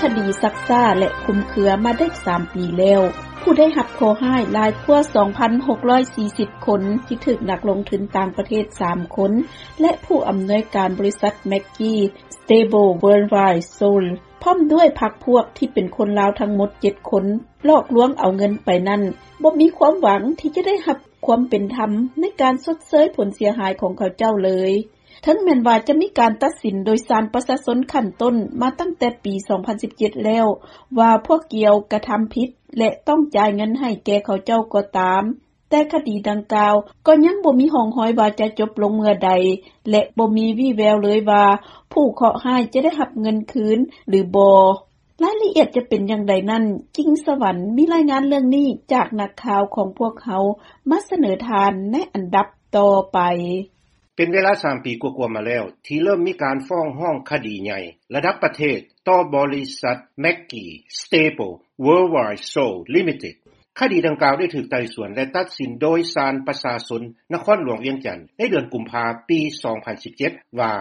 ຄະດີຊັກຊ້າ ແລະ ຄຸມເຄືອມາໄດ້ສາມປີແລ້ວ, ຜູ້ໄດ້ຮັບເຄາະຮ້າຍຫຼາຍກວ່າ ສອງພັນຫົກຮ້ອຍສີ່ສິບ ຄົນ ທີ່ຖືກນັກລົງທຶນຕ່າງປະເທດ ສາມ ຄົນ ແລະ ຜູ້ອຳນວຍການບໍລິສັດ Maggie Stable Worldwide Sold ພ້ອມດ້ວຍພັກພວກທີ່ເປັນຄົນລາວທັງໝົດ ເຈັດ ຄົນ ຫຼອກລວງເອົາເງິນໄປນັ້ນ ບໍ່ມີຄວາມຫວັງທີ່ຈະໄດ້ຮັບຄວາມເປັນທຳໃນການຊົດເຊີຍຜົນເສຍຫາຍຂອງເຂົາເຈົ້າເລີຍ. ເຖິງແມ່ນວ່າຈະມີການຕັດສິນໂດຍສານປະຊາຊົນຂັ້ນຕົ້ນມາຕັ້ງແຕ່ປີ ສອງພັນສິບເຈັດ ແລ້ວ ວ່າພວກກ່ຽວກະທຳຜິດ ແລະ ຕ້ອງຈ່າຍເງິນໃຫ້ແກ່ເຂົາເຈົ້າກໍຕາມ, ແຕ່ຄະດີດັ່ງກ່າວກໍຍັງບໍ່ມີຮ່ອງຮອຍວ່າຈະຈົບລົງເມື່ອໃດ ແລະ ບໍ່ມີວີ່ແວວເລີຍວ່າຜູ້ເຄາະຮ້າຍຈະໄດ້ຮັບເງິນຄືນຫຼືບໍ່. ລາຍລະອຽດຈະເປັນຢ່າງໃດນັ້ນ, ກິ່ງສະຫວັນມີລາຍງານເລື່ອງນີ້ຈາກນັກຂ່າວຂອງພວກເຮົາມາສະເໜີທ່ານໃນອັນດັບຕໍ່ໄປ. ເປັນເວລາສາມປີກວ່າໆມາແລ້ວ ທີ່ເລີ່ມມີການຟ້ອງຮ້ອງຄະດີໃຫຍ່ລະດັບປະເທດຕໍ່ບໍລິສັດ Maggie Stable Worldwide Sold Limited. ຄະດີດັ່ງກ່າວໄດ້ຖືກໄຕ່ສວນ ແລະ ຕັດສິນໂດຍສານປະຊາຊົນນະຄອນຫຼວງວຽງຈັນໃນເດືອນກຸມພາປີ ສອງພັນສິບເຈັດ ວ່າ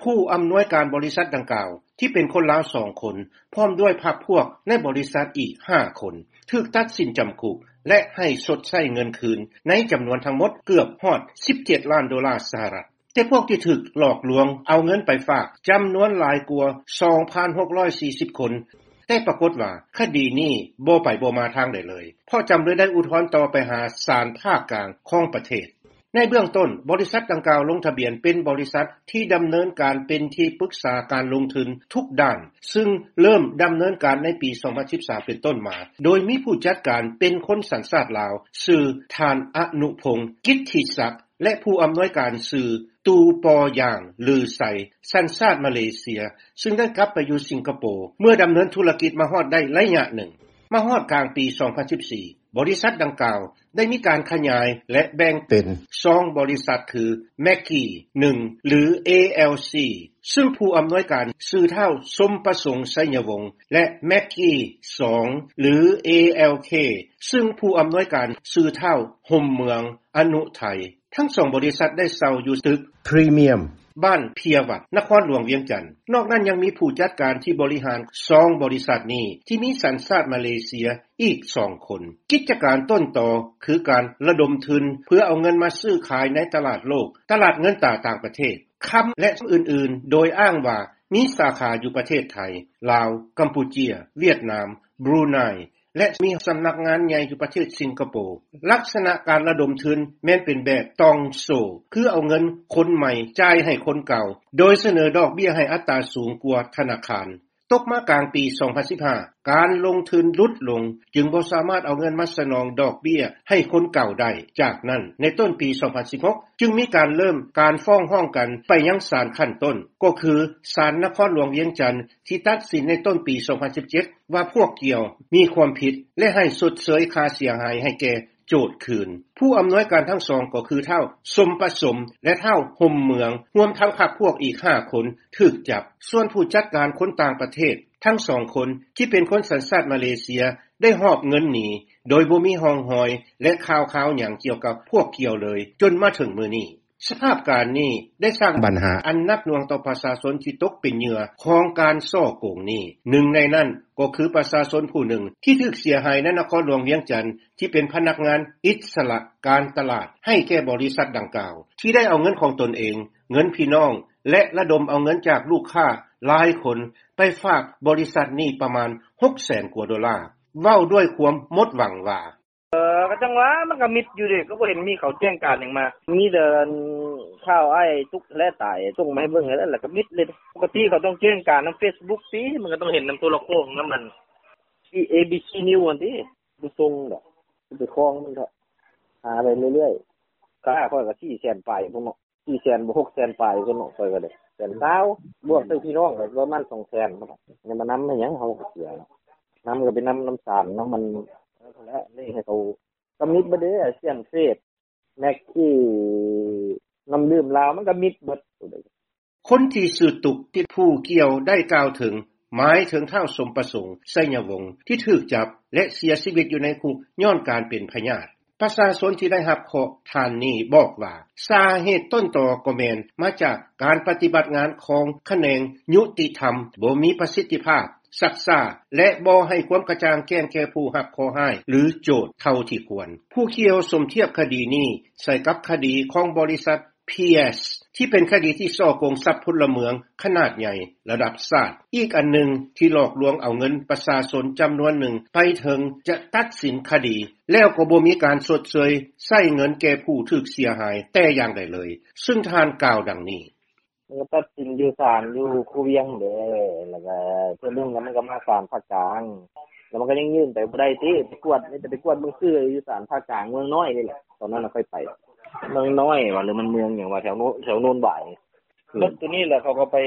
ຜູ້ອຳນວຍການບໍລິສັດດັ່ງກ່າວ ທີ່ເປັນຄົນລາວ ສອງ ຄົນ ພ້ອມດ້ວຍພັກພວກໃນບໍລິສັດອີກ ຫ້າ ຄົນ ຖືກຕັດສິນຈຳຄຸກ ແລະ ໃຫ້ຊົດໃຊ້ເງິນຄືນໃນຈຳນວນທັງໝົດເກືອບຮອດ ສິບເຈັດ ລ້ານໂດລາສະຫະລັດ. ແຕ່ພວກທີ່ຖືກຫຼອກລວງເອົາເງິນໄປຝາກຈຳນວນຫຼາຍກວ່າ ສອງພັນຫົກຮ້ອຍສີ່ສິບ ຄົນ, ແຕ່ປາກົດວ່າຄະດີນີ້ບໍ່ໄປບໍ່ມາທາງໃດເລີຍ, ເພາະຈຳເລີຍໄດ້ອຸທອນຕໍ່ໄປຫາສານພາກກາງຂອງປະເທດ. ໃນເບື້ອງຕົ້ນ, ບໍລິສັດດັ່ງກ່າວລົງທະບຽນເປັນບໍລິສັດທີ່ດຳເນີນການເປັນທີ່ປຶກສາການລົງທຶນທຸກດ້ານ, ຊຶ່ງເລີ່ມດຳເນີນການໃນປີ ສອງພັນສິບສາມ ເປັນຕົ້ນມາ, ໂດຍມີຜູ້ຈັດການເປັນຄົນສັນຊາດລາວ, ຊື່ ທ່ານ ອະນຸພົງ ກິດທິສັກ ແລະ ຜູ້ອຳນວຍການ ຊື່ ຕູ ປໍຢາງ ຫຼື ໄຊ ສັນຊາດມາເລເຊຍ, ຊຶ່ງໄດ້ກັບໄປຢູ່ສິງກະໂປ ເມື່ອດຳເນີນທຸລະກິດມາຮອດໄດ້ໄລຍະໜຶ່ງ. ມາຮອດກາງປີ ສອງພັນສິບສີ່ ບໍລິສັດດັ່ງກ່າວໄດ້ມີການຂະຫຍາຍ ແລະ ແບ່ງເປັນ ສອງ ບໍລິສັດ ຄື Maggie ໜຶ່ງ ຫຼື ALC ຊຶ່ງຜູ້ອຳນວຍການຊື່ທ້າວ ສົມປະສົງ ໄຊຍະວົງ ແລະ Maggie ສອງ ຫຼື ALK ຊຶ່ງຜູ້ອຳນວຍການຊື່ທ້າວ ຫົມເມືອງ ອະນຸໄທ. ທັງສອງບໍລິສັດໄດ້ເຊົ່າຢູ່ຕຶກພຣີມຽມ ບ້ານເພຍວັດ ນະຄອນຫຼວງວຽງຈັນ. ນອກນັ້ນຍັງມີຜູ້ຈັດການທີ່ບໍລິຫານສອງບໍລິສັດນີ້ ທີ່ມີສັນຊາດມາເລເຊຍອີກສອງຄົນ. ກິດຈະການຕົ້ນຕໍຄືການລະດົມທຶນເພື່ອເອົາເງິນມາຊື້ຂາຍໃນຕະຫຼາດໂລກ, ຕະຫຼາດເງິນຕາຕ່າງປະເທດ, ຄຳ ແລະ ອື່ນໆ ໂດຍອ້າງວ່າມີສາຂາຢູ່ປະເທດໄທ, ລາວ, ກຳປູເຈຍ, ຫວຽດນາມ, ບຣູໄນ ແລະ ມີສຳນັກງານໃຫຍ່ຢູ່ປະເທດສິງກະໂປ. ລັກສະນະການລະດົມທຶນແມ່ນເປັນແບບຕ່ອງໂສ້, ຄືເອົາເງິນຄົນໃໝ່ຈ່າຍໃຫ້ຄົນເກົ່າ, ໂດຍສະເໜີດອກເບ້ຍໃຫ້ອັດຕາສູງກວ່າທະນາຄານ. ຕົກມາກາງປີ ສອງພັນສິບຫ້າ ການລົງທຶນຫຼຸດລົງ, ຈຶ່ງບໍ່ສາມາດເອົາເງິນມາສະໜອງດອກເບ້ຍໃຫ້ຄົນເກົ່າໄດ້. ຈາກນັ້ນ, ໃນຕົ້ນປີ ສອງພັນສິບຫົກ ຈຶ່ງມີການເລີ່ມການຟ້ອງຮ້ອງກັນໄປຍັງສານຂັ້ນຕົ້ນ, ກໍຄືສານນະຄອນຫຼວງວຽງຈັນ ທີ່ຕັດສິນໃນຕົ້ນປີ ສອງພັນສິບເຈັດ ວ່າພວກກ່ຽວມີຄວາມຜິດ ແລະ ໃຫ້ຊົດເຊີຍຄ່າເສຍຫາຍໃຫ້ແກ່ໂຈດຄືນ. ຜູ້ອຳນວຍການທັງສອງກໍຄືທ້າວ ສົມປະສົມ ແລະ ທ້າວ ຫົມເມືອງ, ຮວມທັງພັກພວກອີກຫ້າຄົນຖືກຈັບ. ສ່ວນຜູ້ຈັດການຄົນຕ່າງປະເທດທັງສອງຄົນ ທີ່ເປັນຄົນສັນຊາດມາເລເຊຍ ໄດ້ຫອບເງິນໜີ ໂດຍບໍ່ມີຮ່ອງຮອຍ ແລະ ຂ່າວຄາວຫຍັງກ່ຽວກັບພວກກ່ຽວເລີຍ ຈົນມາເຖິງມື້ນີ້. ສະພາບການນີ້ໄດ້ສ້າງບັນຫາອັນໜັກໜ່ວງຕໍ່ປະຊາຊົນທີ່ຕົກເປັນເຫຍື່ອຂອງການສໍ້ໂກງນີ້. ໜຶ່ງໃນນັ້ນກໍຄືປະຊາຊົນຜູ້ໜຶ່ງທີ່ຖືກເສຍຫາຍໃນນະຄອນຫຼວງວຽງຈັນ ທີ່ເປັນພະນັກງານອິດສະຫຼະການຕະຫຼາດໃຫ້ແກ່ບໍລິສັດດັ່ງກ່າວ ທີ່ໄດ້ເອົາເງິນຂອງຕົນເອງ, ເງິນພີ່ນ້ອງ ແລະ ລະດົມເອົາເງິນຈາກລູກຄ້າຫຼາຍຄົນໄປຝາກບໍລິສັດນີ້ປະມານ ຫົກແສນກວ່າໂດລາ. ເວົ້າດ້ວຍຄວາມໝົດຫວັງວ່າ ເອີ ກໍຈັ່ງວ່າ ມັນກໍມິດຢູ່ເດ້ ກໍບໍ່ເຫັນມີເຂົາແຈ້ງການຫຍັງມາ ມີແຕ່ອັນຂ່າວອ້າຍຕຸກແລະຕາຍ ສົ່ງມາໃຫ້ເບິ່ງຫັ້ນແຫຼະ ແລ້ວກໍມິດເລີຍ. ປົກກະຕິເຂົາຕ້ອງແຈ້ງການນຳເຟສບຸກຕິ ມັນກໍຕ້ອງເຫັນນຳໂທລະໂຂງນຳອັນ ເອບີຊີນິວຫັ້ນຕິ ບໍ່ສົ່ງດອກ ໄປຄອງມັນເຖາະ ຫາໄປເລື້ອຍໆ. ຄ່າຂ້ອຍກໍສີ່ແສນປາຍພຸ້ນເນາະ ສີ່ແສນບໍ່ ຫົກແສນປາຍພຸ້ນເນາະ ຂ້ອຍກໍໄດ້ແສນຊາວ ບວກໃສ່ພີ່ນ້ອງກໍປະມານສອງແສນພຸ້ນເນາະ ຍັງມານຳໃຫ້ຫຍັງ ເຮົາກໍເສຍເນາະ ນຳກໍໄປນຳ ນຳສານນຳມັນ ນັ້ນແຫຼະ ເລີຍໃຫ້ເຂົາ ກໍມິດເບິດເດ້ ອາຊຽນເຟສ ແມັກກີ້ ນ້ຳດື່ມລາວ ມັນກໍມິດເບິດ. ຄົນທີ່ຊື່ຕຸກ ທີ່ຜູ້ກ່ຽວໄດ້ກ່າວເຖິງ ໝາຍເຖິງທ້າວ ສົມປະສົງ ໄຊຍະວົງ ທີ່ຖືກຈັບ ແລະ ເສຍຊີວິດຢູ່ໃນຄຸກຍ້ອນການເປັນພະຍາດ. ປະຊາຊົນທີ່ໄດ້ຮັບເຄາະທ່ານນີ້ບອກວ່າ ສາເຫດຕົ້ນຕໍກໍແມ່ນມາຈາກການປະຕິບັດງານຂອງຂະແໜງຍຸຕິທຳບໍ່ມີປະສິດທິພາບ, ຊັກຊ້າ ແລະ ບໍ່ໃຫ້ຄວາມກະຈ່າງແຈ້ງແກ່ຜູ້ຮັບເຄາະຮ້າຍ ຫຼື ໂຈດເທົ່າທີ່ຄວນ. ຜູ້ກ່ຽວສົມທຽບຄະດີນີ້ໃສ່ກັບຄະດີຂອງບໍລິສັດ ພີເອັສ ທີ່ເປັນຄະດີທີ່ສໍ້ໂກງຊັບພົນລະເມືອງຂະໜາດໃຫຍ່ລະດັບຊາດ ອີກອັນໜຶ່ງທີ່ຫຼອກລວງເອົາເງິນປະຊາຊົນຈຳນວນໜຶ່ງ ໄປເຖິງຈະຕັດສິນຄະດີ ແລ້ວກໍບໍ່ມີການຊົດເຊີຍໃຊ້ເງິນແກ່ຜູ້ຖືກເສຍຫາຍແຕ່ຢ່າງໃດເລີຍ, ຊຶ່ງທ່ານກ່າວດັ່ງນີ້. ມັນກໍຕັດສິນຢູ່ສານຢູ່ຄູວຽງເດ້ ແລ້ວກໍເທື່ອໜຶ່ງ ແລ້ວມັນກໍມາສານພາກກາງ ແລ້ວມັນກໍຍັງຍື່ນໄປບໍ່ໄດ້ຕິ ໄປກວດ ມີແຕ່ໄປກວດເບິ່ງຊື່ຢູ່ສານພາກກາງເມືອງນ້ອຍນີ້ແຫຼະ. ຕອນນັ້ນນະຂ້ອຍໄປ ເມືອງນ້ອຍຫວາ ຫຼືມັນເມືອງຫຍັງຫວາ ແຖວໂນ ແຖວໂນນຫວາຍ. ເບິດໂຕນີ້ແຫຼະ ເຂົາກໍໄປ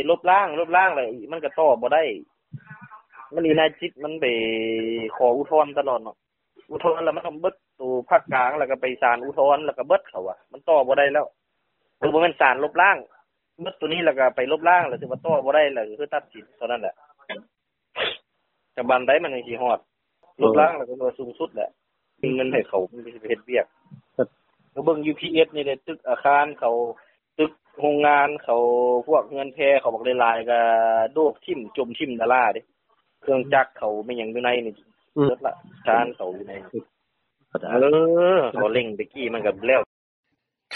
ລົບລ້າງ ລົບລ້າງແລ້ວ ມັນກໍຕໍ່ບໍ່ໄດ້. ມັນອີນາຍຈິດ ມັນໄປຂໍອຸທອນຕະຫຼອດເນາະ. ອຸທອນແລ້ວມັນຕ້ອງເບິດໂຕພາກກາງ ແລ້ວກໍໄປສານອຸທອນ ແລ້ວກໍເບິດ ເຂົາວ່າມັນຕໍ່ບໍ່ໄດ້ແລ້ວ. ຄືບໍ່ແມ່ນສານລົບລ້າງ ເບິດໂຕນີ້ແລ້ວກໍໄປລົບລ້າງ ແລ້ວຖືວ່າຕໍ່ບໍ່ໄດ້ ແລ້ວຄືຕັດສິນເທົ່ານັ້ນແຫຼະ. ຈະບານໃດມັນຈັ່ງຊິຮອດ ລົບລ້າງແລ້ວກໍວ່າສູງສຸດແຫຼະ ມີເງິນໃຫ້ເຂົາ ມັນຊິໄປເຮັດວຽກ. ກໍເບິ່ງຢູ່ພີເອັສນີ້ແຫຼະ ຕຶກອາຄານເຂົາ ຕຶກໂຮງງານເຂົາ ພວກເຮືອນແພເຂົາບັກຫຼາຍໆ ກໍໂດດຖິ້ມ ຈົມຖິ້ມດາລາເດ້. ເຄື່ອງຈັກເຂົາແມ່ນຫຍັງຢູ່ໃນນີ້ ເບິດລະ ທານເຂົາຢູ່ໃນນີ້. ເອີ ເຂົາເລັ່ງແຕ່ກີ້ມັນກໍແລ້ວ.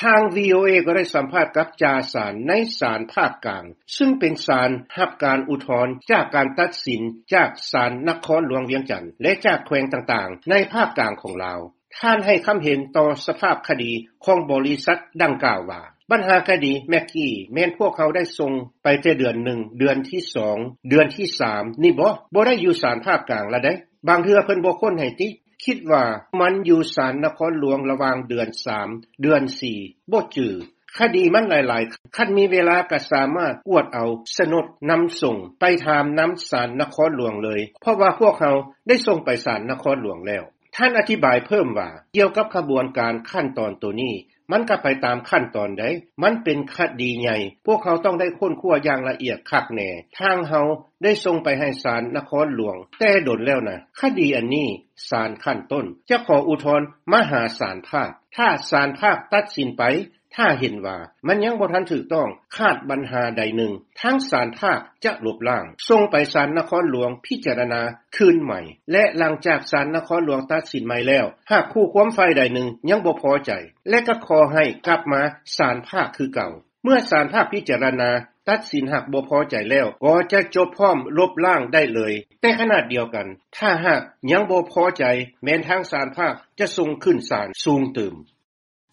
ທາງ ວີໂອເອ ກໍໄດ້ສຳພາດກັບຈ່າສານໃນສານພາກກາງ ຊຶ່ງເປັນສານຮັບການອຸທອນຈາກການຕັດສິນຈາກສານນະຄອນຫຼວງວຽງຈັນ ແລະ ຈາກແຂວງຕ່າງໆໃນພາກກາງຂອງລາວ. ທ່ານໃຫ້ຄຳເຫັນຕໍ່ສະພາບຄະດີຂອງບໍລິສັດດັ່ງກ່າວວ່າ ບັນຫາຄະດີແມັກກີ້ແມ່ນພວກເຮົາໄດ້ສົ່ງໄປແຕ່ເດືອນໜຶ່ງ ເດືອນທີສອງ ເດືອນທີສາມນີ້ບໍ? ບໍ່ໄດ້ຢູ່ສານພາກກາງລະໃດ໋. ບາງເທື່ອເພິ່ນບໍ່ຄົ້ນໃຫ້ຕິ ຄິດວ່າມັນຢູ່ສານນະຄອນຫຼວງລະຫວ່າງເດືອນສາມ ເດືອນສີ່ ບໍ່ຈື່. ຄະດີມັນຫຼາຍໆ ຄັນມີເວລາກໍສາມາດກວດເອົາສະໜົດນຳສົ່ງໄປຖາມນຳສານນະຄອນຫຼວງເລີຍ ເພາະວ່າພວກເຮົາໄດ້ສົ່ງໄປສານນະຄອນຫຼວງແລ້ວ. ທ່ານອະທິບາຍເພີ່ມວ່າ ກ່ຽວກັບຂະບວນການຂັ້ນຕອນໂຕນີ້ ມັນກໍໄປຕາມຂັ້ນຕອນໃດ໋ ມັນເປັນຄະດີໃຫຍ່ ພວກເຮົາຕ້ອງໄດ້ຄົ້ນຄວ້າຢ່າງລະອຽດຄັກແນ່. ທາງເຮົາໄດ້ສົ່ງໄປໃຫ້ສານນະຄອນຫຼວງແຕ່ດົນແລ້ວນະ ຄະດີອັນນີ້ສານຂັ້ນຕົ້ນຈະຂໍອຸທອນມາຫາສານພາກ. ຖ້າສານພາກຕັດສິນໄປ ຖ້າເຫັນວ່າມັນຍັງບໍ່ທັນຖືກຕ້ອງ ຂາດບັນຫາໃດໜຶ່ງ ທາງສານພາກຈະລົບລ້າງ ສົ່ງໄປສານນະຄອນຫຼວງພິຈາລະນາຄືນໃໝ່ ແລະ ຫຼັງຈາກສານນະຄອນຫຼວງຕັດສິນໃໝ່ແລ້ວ ຫາກຄູ່ຄວາມຝ່າຍໃດໜຶ່ງຍັງບໍ່ພໍໃຈ ແລະ ກໍຂໍໃຫ້ກັບມາສານພາກຄືເກົ່າ. ເມື່ອສານພາກພິຈາລະນາຕັດສິນຫາກບໍ່ພໍໃຈແລ້ວ ກໍຈະຈົບພ້ອມລົບລ້າງໄດ້ເລີຍ. ແຕ່ຂະນະດຽວກັນ ຖ້າຫາກຍັງບໍ່ພໍໃຈ ແມ່ນທາງສານພາກຈະສົ່ງຂຶ້ນສານສູງຕື່ມ.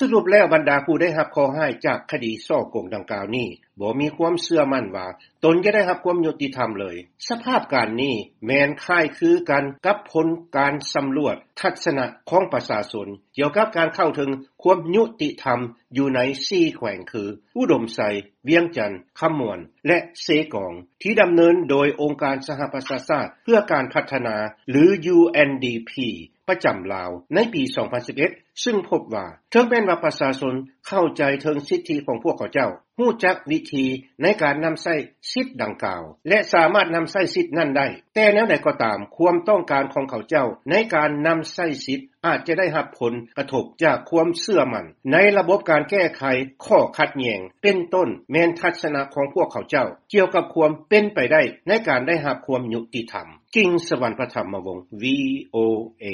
ສະຫຼຸບແລ້ວ ບັນດາຜູ້ໄດ້ຮັບເຄາະຮ້າຍຈາກຄະດີສໍ້ໂກງດັ່ງກ່າວນີ້ ບໍ່ມີຄວາມເຊື່ອໝັ້ນວ່າຕົນຈະໄດ້ຮັບຄວາມຍຸຕິທຳເລີຍ. ສະພາບການນີ້ແມ່ນຄ້າຍຄືກັນກັບຜົນການສຳຫຼວດທັດສະນະຂອງປະຊາຊົນ ກ່ຽວກັບການເຂົ້າເຖິງຄວາມຍຸຕິທຳຢູ່ໃນສີ່ແຂວງຄື ອຸດົມໄຊ, ວຽງຈັນ, ຄຳມ່ວນ ແລະ ເຊກອງ ທີ່ດຳເນີນໂດຍອົງການສະຫະປະຊາຊາດເພື່ອການພັດທະນາ ຫຼື ຢູເອັນດີພີ ປະຈຳລາວໃນປີສອງພັນສິບເອັດ ຊຶ່ງພົບວ່າ ເຖິງແມ່ນວ່າປະຊາຊົນເຂົ້າໃຈເຖິງສິດທິຂອງພວກເຂົາເຈົ້າ, ຮູ້ຈັກວິທີໃນການນຳໃຊ້ສິດດັ່ງກ່າວ ແລະ ສາມາດນຳໃຊ້ສິດນັ້ນໄດ້, ແຕ່ແນວໃດກໍຕາມ, ຄວາມຕ້ອງການຂອງເຂົາເຈົ້າໃນການນຳໃຊ້ສິດອາດຈະໄດ້ຮັບຜົນກະທົບຈາກຄວາມເຊື່ອໝັ້ນໃນລະບົບການແກ້ໄຂຂໍ້ຂັດແຍ່ງ, ເປັນຕົ້ນແມ່ນທັດສະນະຂອງພວກເຂົາເຈົ້າກ່ຽວກັບຄວາມເປັນໄປໄດ້ໃນການໄດ້ຮັບຄວາມຍຸຕິທຳ. ກິ່ງສະຫວັນ ປະຖຳມະວົງ ວີໂອເອ.